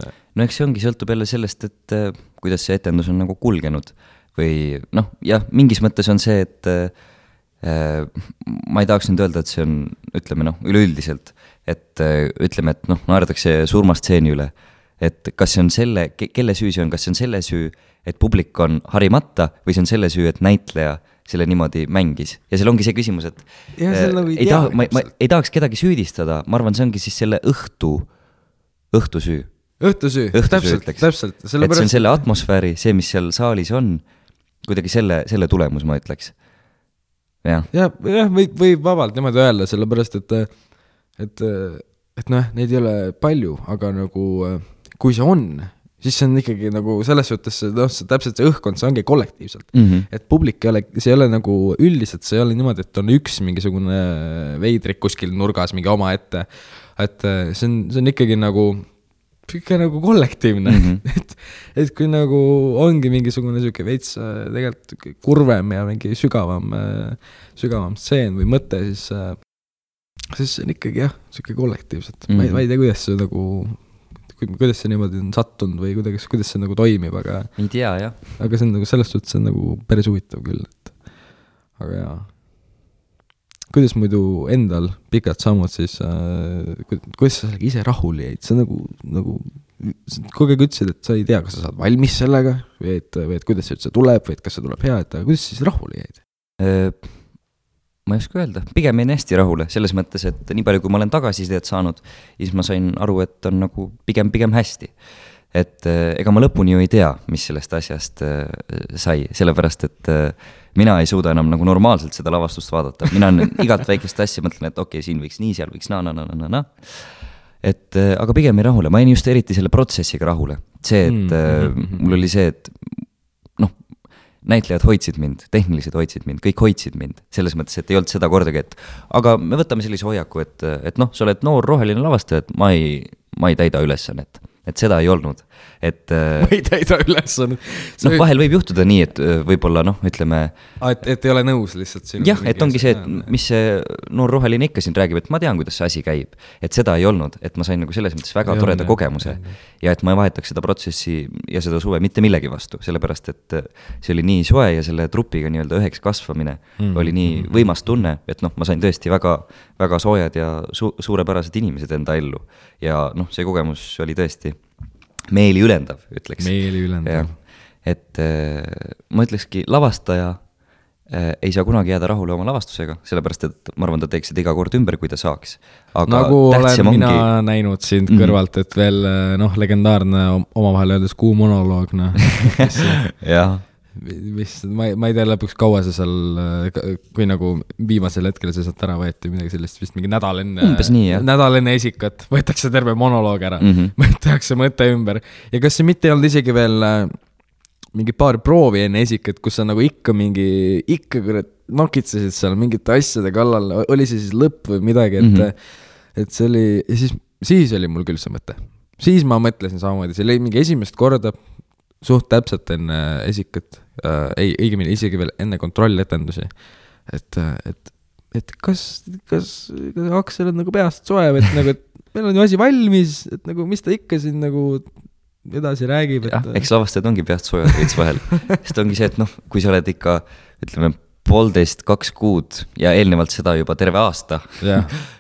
eks see ongi, sõltub jälle sellest, et kuidas see etendus on nagu kulgenud või jah, mingis mõttes on see, et ma ei tahaks nüüd öelda, et see on, ütleme üleüldiselt, et ütleme, et naerdakse surmastseeni üle, et kas see on kelle süü see on, kas see on selle süü, et publik on harimata või see on selle süü, et näitleja selle niimoodi mängis. Ja seal ongi see küsimus, et nagu ma ei tahaks kedagi süüdistada, ma arvan, see ongi siis selle õhtusüü. Õhtusüü, täpselt. Et see on selle atmosfääri, see, mis seal saalis on, kuidagi selle tulemus, ma ütleks. Ja võib vabalt niimoodi öelda, sellepärast, et neid ei ole palju, aga nagu kui see on, siis see on ikkagi nagu selles suhtes, täpselt see õhkkond, see ongi kollektiivselt. Et publik see ei ole nagu üldiselt, see ei ole niimoodi, et on üks mingisugune veidrik kuskil nurgas mingi oma ette, et see on ikkagi nagu kollektiivne. et kui nagu ongi mingisugune süke veits tegelikult kurvem ja mingi sügavam stseen või mõte, siis see on ikkagi süke kollektiivselt. Ma ei tea, kuidas see niimoodi on sattunud või kuidas see nagu toimib, aga ei tea, jah. Aga see on nagu selles suhtes see on nagu päris huvitav küll, et aga jaa. Kuidas muidu endal pikad sammud siis, kuidas sa ise rahule jäid? Sa nagu kogu aeg ütlesid, et sa ei tea, kas sa saad valmis sellega või et kuidas see üldse tuleb või et kas see tuleb hea, et kuidas siis rahule jäid? Ma ei oska öelda, pigem jäin hästi rahule, selles mõttes, et nii palju, kui ma olen tagasisidet saanud, siis ma sain aru, et on nagu pigem hästi. Et ega ma lõpuni ju ei tea, mis sellest asjast sai, sellepärast, et mina ei suuda enam nagu normaalselt seda lavastust vaadata. Mina igalt väikest asja mõtlen, et okei, siin võiks nii, seal võiks na. Et aga pigem ei rahule, ma jäin just eriti selle protsessiga rahule. See, et mul oli see, et näitlejad hoidsid mind, tehnilised hoidsid mind, kõik hoidsid mind, selles mõttes, et ei olnud seda kordagi, et aga me võtame sellise hoiaku, et noh, sa oled noor roheline lavastaja, et ma ei täida ülesannet, et seda ei olnud, et ma ei täida ülesannet. Noh, vahel võib juhtuda nii, et võib-olla noh, ütleme et ei ole nõus lihtsalt sinu jah, et ongi see, et mis see noor roheline ikka siin räägib, et ma tean, kuidas see asi käib, et seda ei olnud, et ma sain nagu selles mõttes väga toreda kogemuse ja et ma ei vahetaks seda protsessi ja seda suve mitte millegi vastu, sellepärast et see oli nii soe ja selle trupiga nii-öelda üheks kasvamine oli nii võimas tunne, et noh, ma sain tõesti väga, väga soojad ja suurepärased inimesed enda ellu ja noh, see kogemus oli tõesti meeli ülendav, ütleks. Meeli ülendav. Et ma ütlekski, lavastaja ei saa kunagi jääda rahule oma lavastusega, sellepärast et ma arvan, ta teeks seda iga kord ümber, kui ta saaks. Aga nagu olen mina näinud sind kõrvalt, et veel noh, legendaarne omavahel öeldes kuu monoloog, noh. jah. Ma ei tea lõpuks kaua see seal, kui nagu viimasel hetkel see sealt ära võeti midagi sellist, vist mingi nädal enne esikat võetakse terve monoloog ära, tehakse mõte ümber ja kas see mitte ei olnud isegi veel mingi paar proovi enne esikat, kus sa nagu ikka nokitsesid seal mingite asjade kallal, oli see siis lõpp või midagi, et see oli ja siis oli mul küll see mõte, siis ma mõtlesin samamoodi, see oli mingi esimest korda suht täpselt enne esikat, õigemini isegi veel enne kontrolletendusi, et kas Aksel on nagu peast soe, et nagu, et meil on ju asi valmis, et nagu, mis ta ikka siin nagu edasi räägib, et eks lavastajad ongi peast soojad veits vahel, sest ongi see, et noh, kui sa oled ikka, ütleme, 1,5–2 kuud ja eelnevalt seda juba terve aasta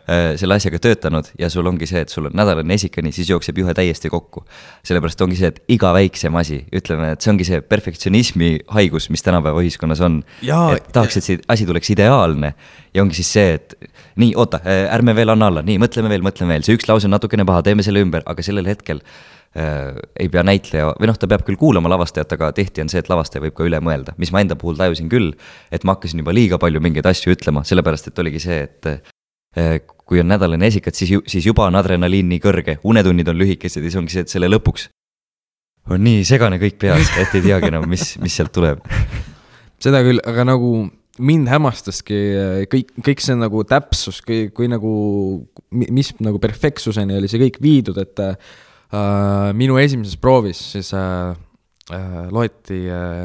selle asjaga töötanud ja sul ongi see, et sul on nädalane esikani, siis jookseb juhe täiesti kokku. Sellepärast ongi see, et iga väiksem asi, ütleme, et see ongi see perfektsionismi haigus, mis tänapäeva ühiskonnas on. Et tahaks, et see asi tuleks ideaalne ja ongi siis see, et nii, oota, ärme veel anna alla, nii, mõtleme veel, see üks lause on natukene paha, teeme selle ümber, aga sellel hetkel ei pea näitleja, või noh, ta peab küll kuulama lavastajat, aga tihti on see, et lavastaja võib ka üle mõelda, mis ma enda puhul tajusin küll, et ma hakkasin juba liiga palju mingeid asju ütlema, sellepärast et oligi see, et kui on nädalane esikat, siis juba on adrenaliin nii kõrge, unetunnid on lühikesed ja siis ongi see, et selle lõpuks on nii segane kõik peas, et ei teagi enam, mis sealt tuleb. Seda küll, aga nagu mind hämmastaski kõik see nagu täpsus, kui nagu, mis nagu perfektsuseni oli see kõik viidud, et minu esimeses proovis siis loeti ja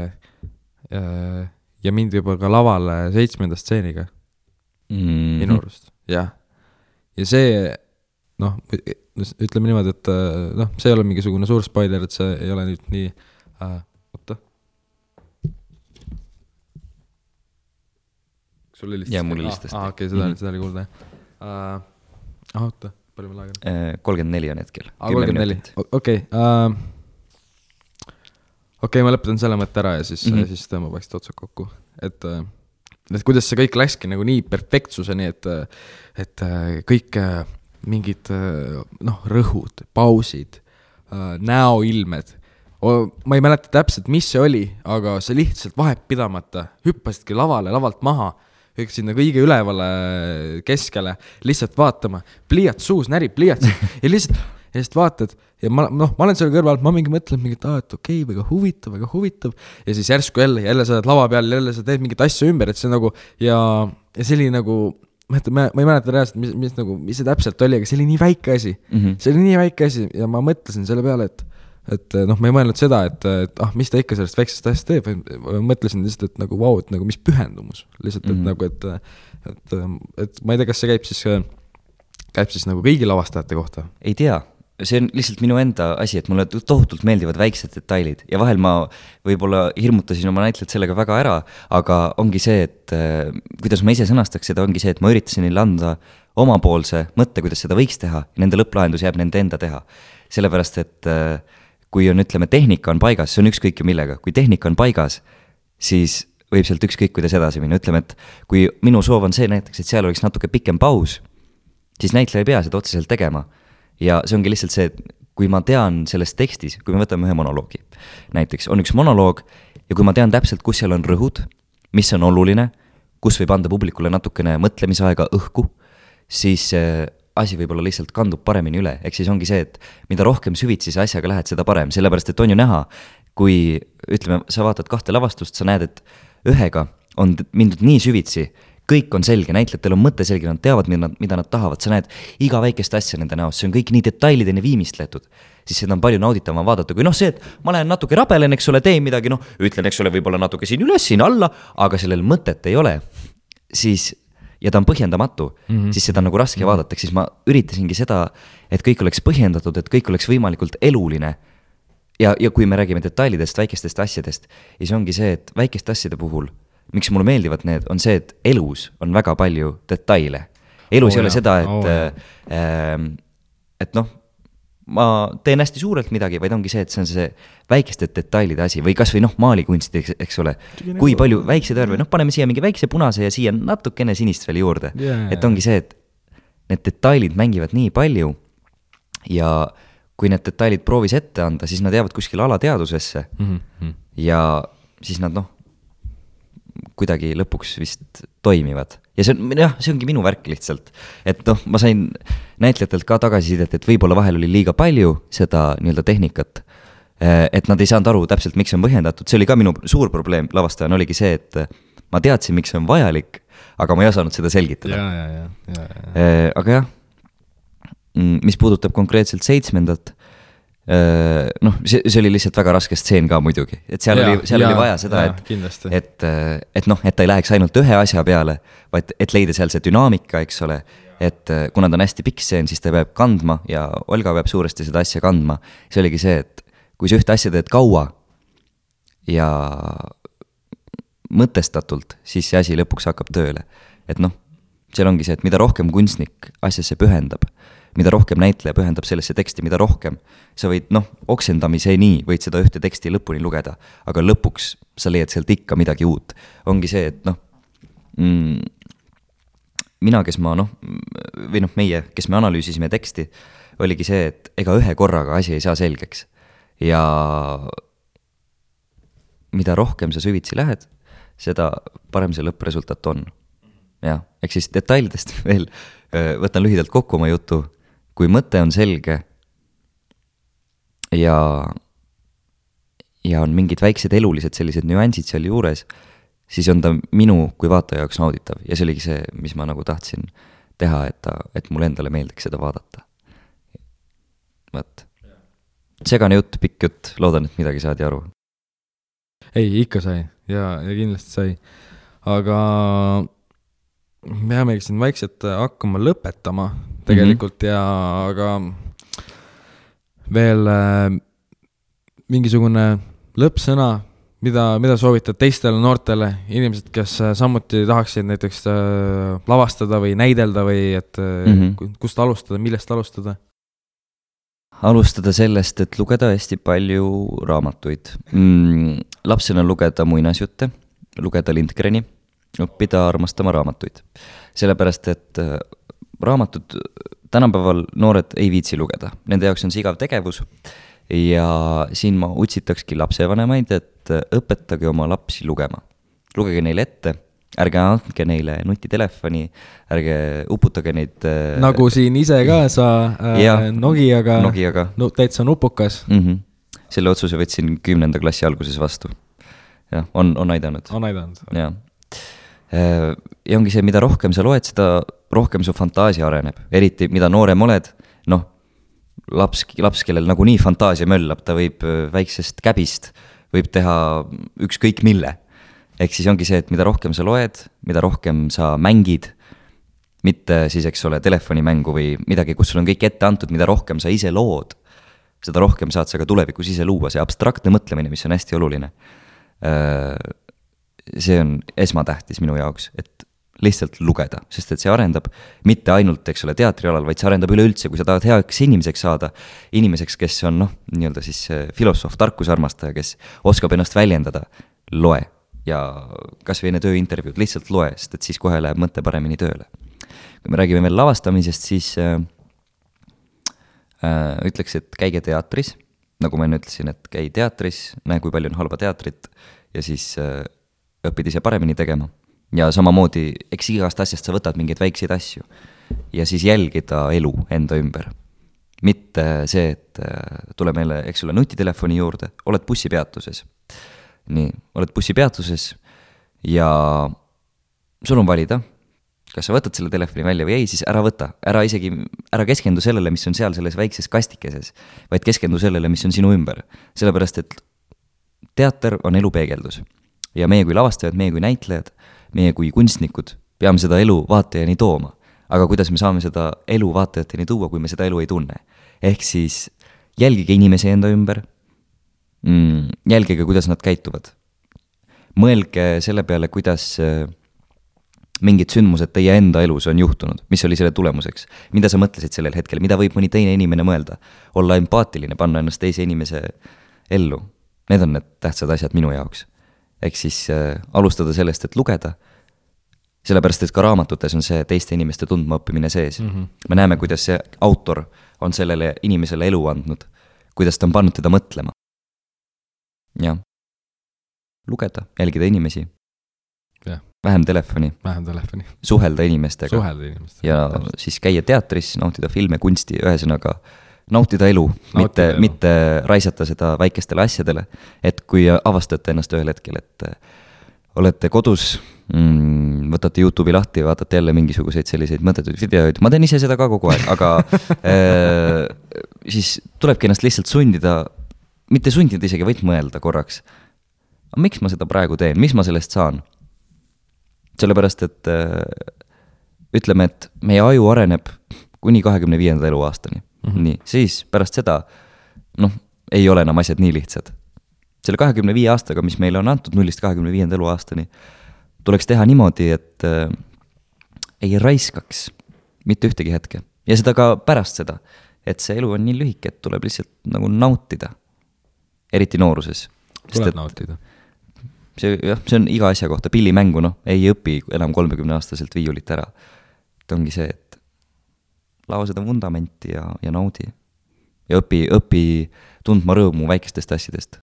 mind juba ka lavale 7. stseeniga minu arust, jah. Ja see, noh, ütleme niimoodi, et noh, see ei ole mingisugune suur spoiler, et see ei ole nüüd nii oota. Sul helistas? Jaa, mul helistas. Okei, seda oli kuulda. Oota. 34 on hetkel. 34, okei. Okei, ma lõpetan selle mõtte ära ja siis tõmbab vaikselt otsad kokku. Et kuidas see kõik läkski nagu nii perfektsuseni, et kõik mingid rõhud, pausid, näoilmed. Ma ei mäleta täpselt, mis see oli, aga see lihtsalt vahetpidamata hüppasidki lavalt maha, üks sinna kõige ülevale keskele, lihtsalt vaatama, pliiats suus, närib pliiats ja lihtsalt vaatad ja ma olen seal kõrval, ma mingi mõtlen mingit, et okei, väga huvitav ja siis järsku jälle sa oled lava peal, jälle sa teed mingit asja ümber, et see nagu ja see oli nagu, ma ei mäleta reaalselt, mis see täpselt oli, aga see oli nii väike asi, see oli nii väike asi ja ma mõtlesin selle peale, et noh, ma ei mõelnud seda, et mis ta ikka sellest väiksest asjast teeb, mõtlesin lihtsalt, et nagu vau, et nagu mis pühendumus lihtsalt, et nagu, et ma ei tea, kas see käib siis nagu kõigi lavastajate kohta? Ei tea, see on lihtsalt minu enda asi, et mulle tohutult meeldivad väiksed detailid ja vahel ma võib-olla hirmutasin oma näitlejat sellega väga ära, aga ongi see, et kuidas ma ise sõnastaks seda, ongi see, et ma üritasin neile anda omapoolse mõtte, kuidas seda võiks teha ja nende lõpplahendus jääb nende enda teha, sellepärast et kui on, ütleme, tehnika on paigas, see on ükskõik ju millega, kui tehnika on paigas, siis võib sealt ükskõik kuidas edasi minna, ütleme, et kui minu soov on see näiteks, et seal oleks natuke pikem paus, siis näitleja ei pea seda otseselt tegema ja see ongi lihtsalt see, et kui ma tean selles tekstis, kui me võtame ühe monoloogi, näiteks on üks monoloog ja kui ma tean täpselt, kus seal on rõhud, mis on oluline, kus võib anda publikule natukene mõtlemisaega õhku, siis asi võib-olla lihtsalt kandub paremini üle, ehk siis ongi see, et mida rohkem süvitsi sa asjaga lähed, seda parem, sellepärast et on ju näha, kui ütleme, sa vaatad 2 lavastust, sa näed, et ühega on mindud nii süvitsi, kõik on selge, näitlejatel on mõte selge, nad teavad, mida nad tahavad, sa näed iga väikest asja nende näost, see on kõik nii detailideni viimistletud, siis seda on palju nauditavam vaadata, kui see, et ma lähen natuke rabelen, eks ole, teen midagi, ütlen, eks ole, võib-olla natuke siin üles, siin alla, aga sellel mõtet ei ole, siis, ja ta on põhjendamatu, siis seda on nagu raske vaadata, siis ma üritasingi seda, et kõik oleks põhjendatud, et kõik oleks võimalikult eluline. Ja kui me räägime detailidest, väikestest asjadest, siis ongi see, et väikeste asjade puhul, miks mulle meeldivad need, on see, et elus on väga palju detaile. Elus ei ole seda, et ma teen hästi suurelt midagi, vaid ongi see, et see on see väikeste detailide asi või kas või maalikunst, eks ole. Kui palju väikseid värve, paneme siia mingi väikse punase ja siia natukene sinist veel juurde. Et ongi see, et need detailid mängivad nii palju ja kui need detailid proovis ette anda, siis nad jäävad kuskil alateadusesse ja siis nad kuidagi lõpuks vist toimivad. Ja see ongi minu värk lihtsalt. Et ma sain näitlejatelt ka tagasisidet, et võib-olla vahel oli liiga palju seda nii-öelda tehnikat, et nad ei saanud aru täpselt, miks on põhjendatud. See oli ka minu suur probleem lavastajana, oligi see, et ma teadsin, miks see on vajalik, aga ma ei osanud seda selgitada. Aga jah, mis puudutab konkreetselt 7. See oli lihtsalt väga raske stseen ka muidugi, et seal oli vaja seda, et ta ei läheks ainult ühe asja peale, vaid et leida seal see dünaamika, eks ole, et kuna ta on hästi pikk stseen, siis ta peab kandma ja Olga peab suuresti seda asja kandma. See oligi see, et kui sa ühte asja teed kaua ja mõtestatult, siis see asi lõpuks hakkab tööle. Et seal ongi see, et mida rohkem kunstnik asjasse pühendab, mida rohkem näitleja pühendab sellesse teksti, mida rohkem sa võid, oksendamiseni võid seda ühte teksti lõpuni lugeda, aga lõpuks sa leiad sealt ikka midagi uut. Ongi see, et mina, kes meie, kes me analüüsisime teksti, oligi see, et ega ühe korraga asi ei saa selgeks. Ja mida rohkem sa süvitsi lähed, seda parem see lõppresultat on. Ja, ehk siis detailidest veel võtan lühidalt kokku oma jutu. Kui mõte on selge ja on mingid väiksed elulised sellised nüansid seal juures, siis on ta minu kui vaataja jaoks nauditav. Ja see oligi see, mis ma tahtsin teha, et mulle endale meeldiks seda vaadata. Võt. Segane jutt, pikk jutt, loodan, et midagi saadi aru. Ei, ikka sai ja kindlasti sai. Aga me jäämegi siin vaikselt hakkama lõpetama tegelikult ja aga veel mingisugune lõppsõna, mida soovitad teistele noortele inimesed, kes samuti tahaksid näiteks lavastada või näidelda või et kust alustada, millest alustada? Alustada sellest, et lugeda hästi palju raamatuid. Lapsena lugeda muinasjutte, lugeda Lindgreni, õppida armastama raamatuid. Sellepärast, et raamatud tänapäeval noored ei viitsi lugeda. Nende jaoks on see igav tegevus ja siin ma utsitakski lapsevanemaid, et õpetage oma lapsi lugema. Lugege neile ette, ärge andke neile nutitelefoni, ärge uputage neid... Nagu siin ise ka sa Nokiaga, täitsa nupukas. Selle otsuse võtsin 10. klassi alguses vastu. Ja, on aidanud. On aidanud. Ja ongi see, mida rohkem sa loed, seda rohkem su fantaasia areneb. Eriti, mida noorem oled, laps, kellel nagu nii fantaasia möllab, ta võib väiksest käbist, võib teha ükskõik mille. Ehk siis ongi see, et mida rohkem sa loed, mida rohkem sa mängid, mitte siis, eks ole, telefonimängu või midagi, kus sul on kõik ette antud, mida rohkem sa ise lood, seda rohkem saad sa ka tulevikus ise luua. See abstraktne mõtlemine, mis on hästi oluline. See on esmatähtis minu jaoks, et lihtsalt lugeda, sest et see arendab mitte ainult, eks ole, teatrialal, vaid see arendab üleüldse, kui sa tahad heaks inimeseks saada, inimeseks, kes on nii-öelda siis filosoof, tarkusarmastaja, kes oskab ennast väljendada, loe ja kas või enne tööintervjuud lihtsalt loe, sest et siis kohe läheb mõte paremini tööle. Kui me räägime veel lavastamisest, siis ütleks, et käige teatris, nagu ma enne ütlesin, et käi teatris, näe, kui palju on halba teatrit ja siis õppid ise paremini tegema. Ja samamoodi, eks igast asjast sa võtad mingeid väikseid asju ja siis jälgida elu enda ümber. mitte see, et tule meile, eks ole, nutitelefoni juurde, oled bussipeatuses. Nii, oled bussipeatuses ja sul on valida, kas sa võtad selle telefoni välja või ei, siis ära võta. Ära keskendu sellele, mis on seal selles väikses kastikeses, vaid keskendu sellele, mis on sinu ümber. Sellepärast, et teater on elu peegeldus. Ja meie kui lavastajad, meie kui näitlejad, meie kui kunstnikud peame seda elu vaatajani tooma. Aga kuidas me saame seda elu vaatajateni tuua, kui me seda elu ei tunne? Ehk siis jälgige inimese enda ümber, jälgige, kuidas nad käituvad. Mõelge selle peale, kuidas mingid sündmused teie enda elus on juhtunud, mis oli selle tulemuseks, mida sa mõtlesid sellel hetkel, mida võib mõni teine inimene mõelda, olla empaatiline, panna ennast teise inimese ellu. Need on need tähtsad asjad minu jaoks. Ehk siis alustada sellest, et lugeda, sellepärast, et ka raamatutes on see teiste inimeste tundma õppimine sees. Me näeme, kuidas see autor on sellele inimesele elu andnud, kuidas ta on pannud teda mõtlema. Ja lugeda, jälgida inimesi. Ja. Vähem telefoni. Suhelda inimestega. Ja siis käia teatris, nautida filme, kunsti, ühesõnaga nautida elu, mitte raisata seda väikestele asjadele, et kui avastate ennast ühel hetkel, et olete kodus, võtate YouTube'i lahti ja vaatate jälle mingisuguseid selliseid mõttetuid videoid, ma teen ise seda ka kogu aeg, aga siis tulebki ennast lihtsalt sundida, mitte sundida isegi, võid mõelda korraks. Miks ma seda praegu teen, mis ma sellest saan? Sellepärast, et ütleme, et meie aju areneb kuni 25. eluaastani. Nii, siis pärast seda ei ole enam asjad nii lihtsad. Selle 25 aastaga, mis meile on antud 0-25. eluaastani, tuleks teha niimoodi, et ei raiskaks mitte ühtegi hetke. Ja seda ka pärast seda, et see elu on nii lühike, et tuleb lihtsalt nagu nautida. Eriti nooruses. Tuleb nautida. See on iga asja kohta, pillimängu, ei õpi enam 30-aastaselt viiulit ära. Et ongi see, et lao seda vundamenti ja naudi. Ja õpi tundma rõõmu väikestest asjadest.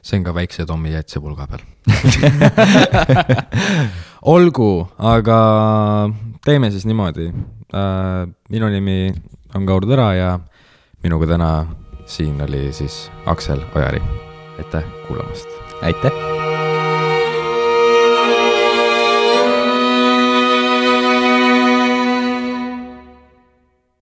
See on ka väikse Tommi jätse pulga peal. Olgu, aga teeme siis niimoodi. Minu nimi on Kaur Tõra ja minuga täna siin oli siis Aksel Ojari. Aitäh kuulamast. Aitäh.